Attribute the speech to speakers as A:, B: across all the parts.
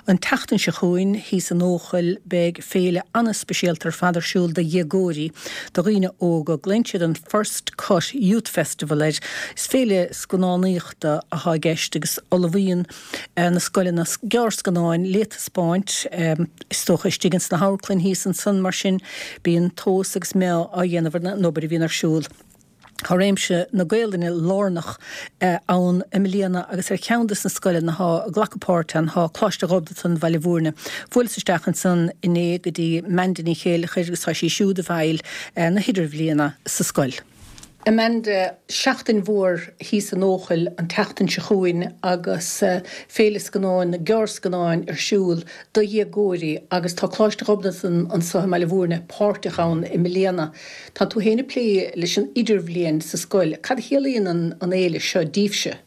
A: An tseachtain seo chugainn, thíos in Eochaill, beidh féile an-speisialta ar fad ar siúl do dhéagóirí, do dhaoine óga. Glaonn siad an First Cut Youth Festival air. Is féile scannánaíochta atá i gceist agus ullmhaíonn na scoileanna gearrscannáin le taispeáint, is dócha, istigh ins na hamharclainn thíos ansan. Mar sin, bíonn tomhas agus meá á dhéanamh ar an obair a bhíonn ar siúl. Tá réimse na Gaolainne lárnach ann i mbliana agus ar cheann des na scoileanna atá ag glacadh páirt ann tá Coláiste Ghobnatan, Bhaile Bhúirne. Bhuaileas isteach ansan inné go dtí Amanda Ní Chéileachair agus tá sí siúd i bhfeighil na hidirbhliana sa scoil. Amanda, Seachtain mhór thíos in Eochaill an tseachtain seo chugainn agus Féile Scannáin na Gearrscannáin ar siúl do dhéagóirí agus tá Coláiste Ghobnatan anso i mBaile Bhúirne páirteach ann i mbliana. Tá tú féin ag plé leis an idirbhliain sa scoil. Cad a chiallaíonn an fhéile seo díbhse?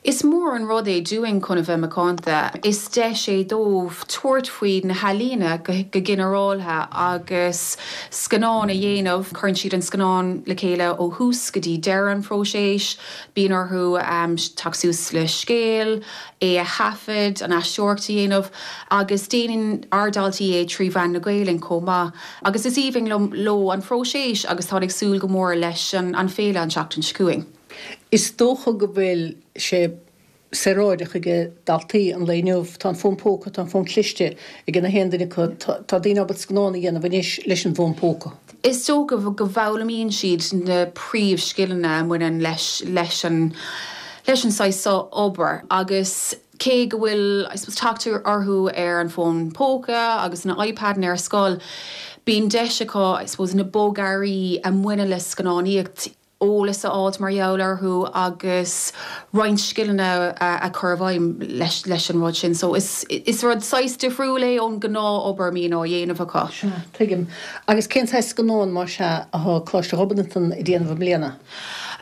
B: Is mór an rud é dúinn chun a bheith macánta. Is deis é dóibh tabhairt faoi na healaíona go ginearáltha agus scannán a dhéanamh. Cuireann siad an scannán le chéile ó thús go dtí deireadh an phróiseas. Bíonn orthu teacht suas le scéal, é a thaifead, an aisteoireacht a dhéanamh agus déanann ár ndaltaí é trí mheán na Gaelainne chomh maith. Agus is aoibhinn leo an phróiseas agus táid ag súil go mór leis an féile an tseachtain seo chugainn.
A: Is dócha go bhfuil sé saoráideach ag daltaí an lae inniu. Tá an fón póca, tá an fón cliste ag na haon duine acu. Tá daoine ábalta scannán a dhéanamh anois leis an bhfón póca.
B: Is dócha go bhfoghlaimíonn siad na príomhscileanna a mbaineann leis leis an leis an saghas seo obair agus cé go bhfuil I suppose teacht orthu ar an bhfón póca agus na iPadanna ar scoil, bíonn deis acu I suppose na bogearraí a mbaineann le scannánaíocht eolas a fháilt mar gheall orthu agus roinnt scileanna a chur i bhfeidhm leis leis an rud sin. So is is rud saghas difriúil é ón gnáth-obair a mbíonn á dhéanamh acu.
A: Sea, tuigim. Agus cén saghas scannán, más ea, atá Coláiste Ghobnatan ag déanamh i mbliana?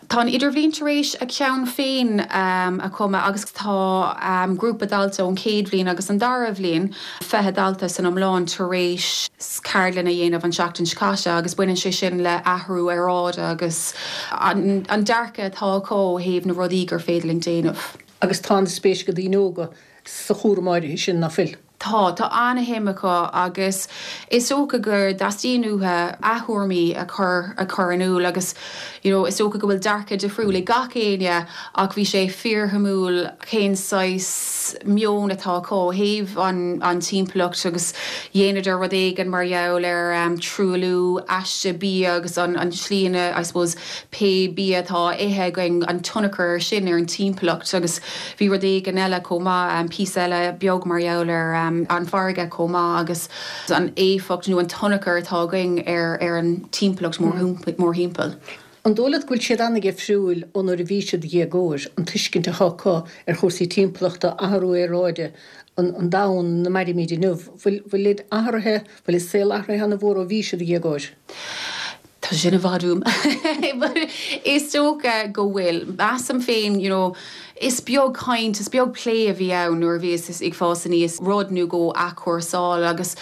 B: Tá an Idirbhliain tar éis a ceann féin a chumadh agus tá grúpa dalta ón chéad bhliain agus an dara bhliain, 20 dalta san iomlán, tar éis ceardlann a dhéanamh an tseachtain seo caite agus baineann sé sin le athrú aeráide agus an dearcadh atá acu ó thaobh na rudaí gur féidir linn déanamh.
A: Agus tá an-spéis ag daoine óga sa chúram áirithe sin, ná fuil?
B: Tá, tá an-shuim acu agus is dócha go dteastaíonn uathu a dtuairimí a chur a chur in iúl agus you know is dócha go bhfuil dearcadh difriúil ag gach éinne ach bhí sé fíorshuimiúil cén saghas meon atá acu ó thaobh an an timpeallacht agus dheineadar rud éigin mar gheall ar truailliú aiste bia agus an an tslí ina I suppose pé bia atá á ithe againn an tionchar ar sin ar an timpeallacht agus Bhí rud éigin eile chomh maith, píosa eile beag mar gheall ar an bhfarraige chomh maith agus an éifeacht nó an tionchar atá againn ar an timpeallacht mórthimpeall.
A: An dóigh leat go bhfuil siad an-dhifriúil ó nuair a bhí siad ina dhéagóir, an tuiscint atá acu ar chúrsaí timpeallachta, athrú aeráide, an domhan ina mairimid inniu? Bhfuil athraithe, bhfuil an saol athraithe an-mhór ó bhí siad ina dhéagóir?
B: Tá sin i bhfad uaim. But is dócha go bhfuil. Measaim féin, you know, is beag caint, is beag plé a bhí ann nuair a bhíos ag fás aníos, rud nó dhó athchúrsáil agus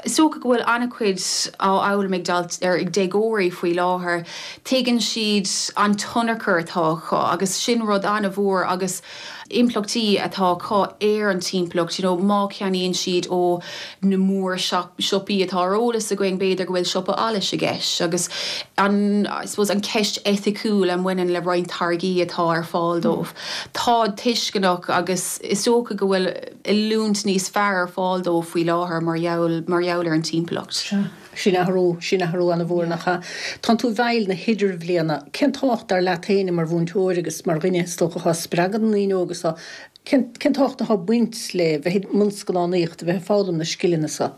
B: is dócha go bhfuil an-chuid á fhoghlaim ag dalt, ar, ag déagóirí faoi láthair. Tuigeann siad an tionchar atá acu agus sin rud an-mhór agus impleachtaí atá acu ar an timpeallacht, you know má cheannaíonn siad ó na mór siopaí atá ar eolas againn, b'fhéidir go bhfuil siopa allais i gceist agus an, I suppose, an ceist eiticiúil a mbaineann le roinnt táirgí atá ar fáil dóibh. Táid tuisceanach agus is dócha go bhfuil oiliúint níos fearr ar fáil dóibh faoi láthair mar gheall, mar gheall ar an timpeallacht.
A: Sea. Sin athrú, sin athrú an-mhór, nach ea? Tánn tú i bhfeighil na hidirbhliana. Cén tábhacht, dar leat féin, mar mhúinteoir agus mar dhuine, is dócha, atá ag spreagadh na ndaoine óga so, cén, cén tábhacht atá ag baint le bheith i mbun scannánaíochta, bheith ag foghlaim na scileanna so?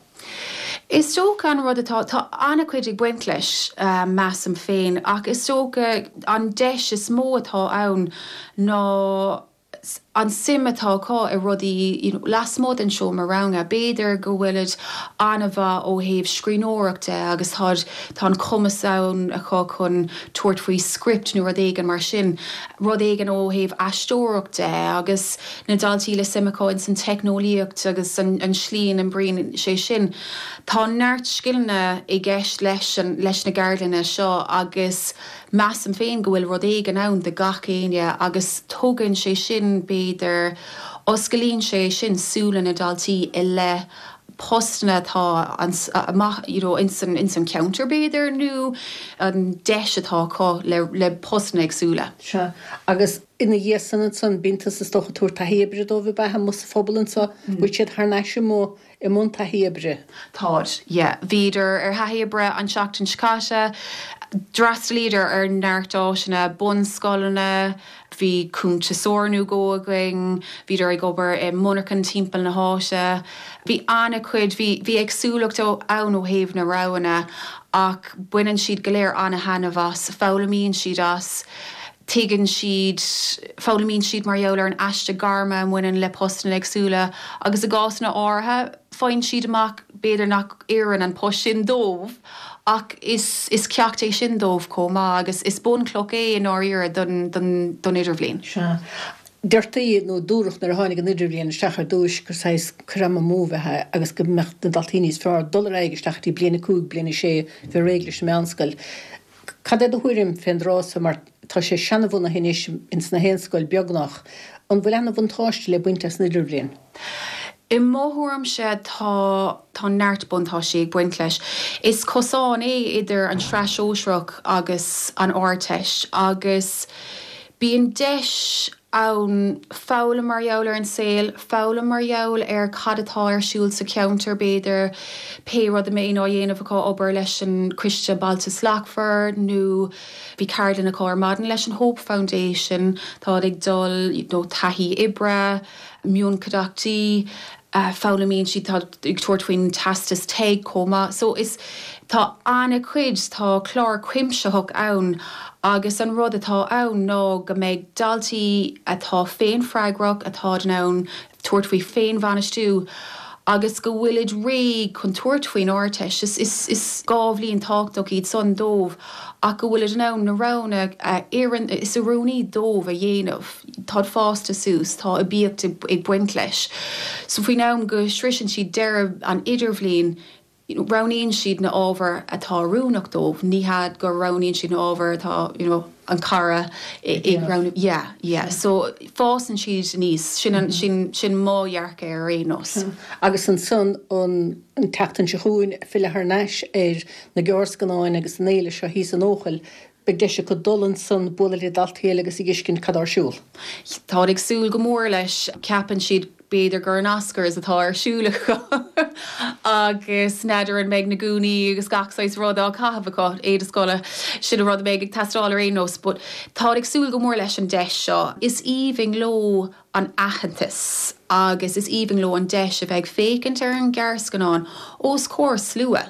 B: Is dócha an rud atá, tá an-chuid ag baint leis, measaim féin, ach is dócha an deis is mó atá ann ná, an suim atá acu i rudaí you know lasmuigh den seomra ranga. B'fhéidir go bhfuilid an-mhaith ó thaobh scríbhneoireacht de agus táid, tá an cumas ann acu chun tabhairt faoi script nó rud éigin mar sin. Rud éigin ó thaobh aisteoireacht de agus na daltaí le suim acu ins an teicneolaíocht agus an an slí ina n-oibríonn sé sin. Tá neart scileanna i gceist leis an, leis na gceardlanna seo agus Measaim féin go bhfuil rud éigin ann do gach éinne agus tugann sé sin, b'fhéidir, Osclaíonn sé sin súile na ndaltaí i leith postanna atá amach you know ins an ins an cheantar b'fhéidir nó an deis atá acu le le postanna éagsúla.
A: Sea. Agus ina dhiaidh san ansan bíonn tusa is dócha ag tabhairt taithí oibre dóibh ab ea amuigh sa phobal anso? Bhfuil siad thar n-ais amuigh i mbun taithí oibre?
B: Táid, yeah. Bhíodar ar thaithí oibre an tseachtain seo caite. D'fhreastalaíodar ar neart áiteanna, bunscoileanna, Bhí cuntasóir nó dhó againn, bhíodar ag obair i monarchain timpeall na háite. Bhí an-chuid, bhí, bhí éagsúlacht ann ó thaobh na roghanna ach baineann siad go léir an-thaitneamh as, foghlaimíonn siad as, tuigeann siad, foghlaimíonn siad mar gheall ar an aiste gairme a mbaineann le postanna éagsúla agus i gcásanna áirithe, faigheann siad amach b'fhéidir nach oireann an post sin dóibh ach is is ceacht é sin dóibh chomh maith agus is bunchloch é i ndáiríre don don don idirbhliain.
A: Sea. Deirtí nó dúradh nuair a tháinig an idirbhliain isteach ar dtúis gur saghas cur ama amú a bheadh ann agus go mbeadh na daltaí níos fearr dul ar aghaidh isteach go dtí bliain 5, bliain 6, bheith réidh leis an meánscoil. Cad é do thuairim fén dtráth so mar tá sé seanabhunaithe anois ins na haon scoil beagnach. An bhfuil ana-bhuntáiste le baint as an idirbhliain?
B: I mo thuairimse tá tá neart buntáistí ag baint leis. Is cosán é idir an tSraith Shóisearach agus an Ardteist agus bíonn deis ann foghlaim mar gheall ar an saol, foghlaim mar gheall ar cad atá ar siúl sa cheantar b'fhéidir, pé rud a mbeidh á dhéanamh acu, obair leis an Coiste Bailte Slachtmhar nó bhí ceardlann acu ar maidin leis an Hope Foundation, táid ag dul you know taithí oibre, mionchuideachtaí, foghlaimíonn siad, tá ag tabhairt faoin teastas TEG chomh maith. So is, tá an-chuid, tá clár cuimsitheach ann agus an rud atá ann ná go mbeidh daltaí atá féinfhreagrach, atá in ann tabhairt faoi féinbhainistiú agus go bhfuilid réidh chun tabhairt faoin Ardteist. Is, is, is 2 bhliain tábhachtach iad san dóibh ach go bhfuilid in ann na roghanna a oireann, is oiriúnaí dóibh a dhéanamh. Táid fásta suas, tá aibíocht ag baint leis. So faoin am go sroiseann siad deireadh an idirbhliain, roghnaíonn siad na ábhair atá oiriúnach dóibh, ní hea go roghnaíonn siad na ábhair atá, you know, an cara ag roghnú. Yeah, yeah. So fásann siad aníos, sin an, sin, sin mo dhearcadh ar aon nós.
A: Agus ansan an tseachtain seo chugainn, filleadh thar n-ais ar na gearrscannáin agus an fhéile seo thíos in Eochaill, Beidh deis acu dul ansan, bualadh le daltaí eile agus a dh'fheiscint cad tá ar siúl.
B: Táid ag súil go mór leis. Ceapann siad b'fhéidir gur an Oscars atá ar siúl acu agus n'fheadar an mbeidh na gúnaí agus gach saghas rud á caitheamh acu, éide scoile, sin an rud a bheidh ag teastáil ar aon nós. But táid ag súil go mór leis an deis seo. Is aoibhinn leo an aitheantas agus is aoibhinn leo an deis a bheith ag féachaint ar an ghearrscannán os comhair slua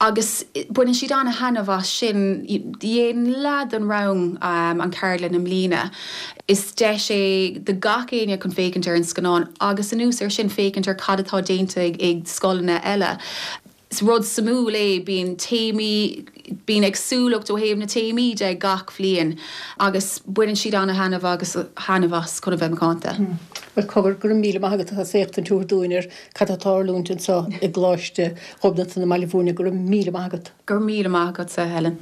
B: agus baineann siad an-thaitneamh as sin. Dhein leath den rang an cheardlann i mbliana. Is deis é do gach éinne chun féachaint ar an scannán agus anuas air sin féachaint ar cad atá déanta ag scoileanna eile. Is rud suimiúil é, bíonn téamaí, bíonn éagsúlacht ó thaobh na téamaí de gach bhliain agus baineann siad ana-thaitneamh agus thaitneamh as chun a bheith macánta.
A: Bhuel, cogar, go raibh míle maith agat as éachtaint a thabhairt dúinn ar cad atá ag tarlúint anseo i gColáiste Ghobnatan i mBaile Bhúirne. Go raibh míle maith agat.
B: Go raibh míle maith agatsa, Helen.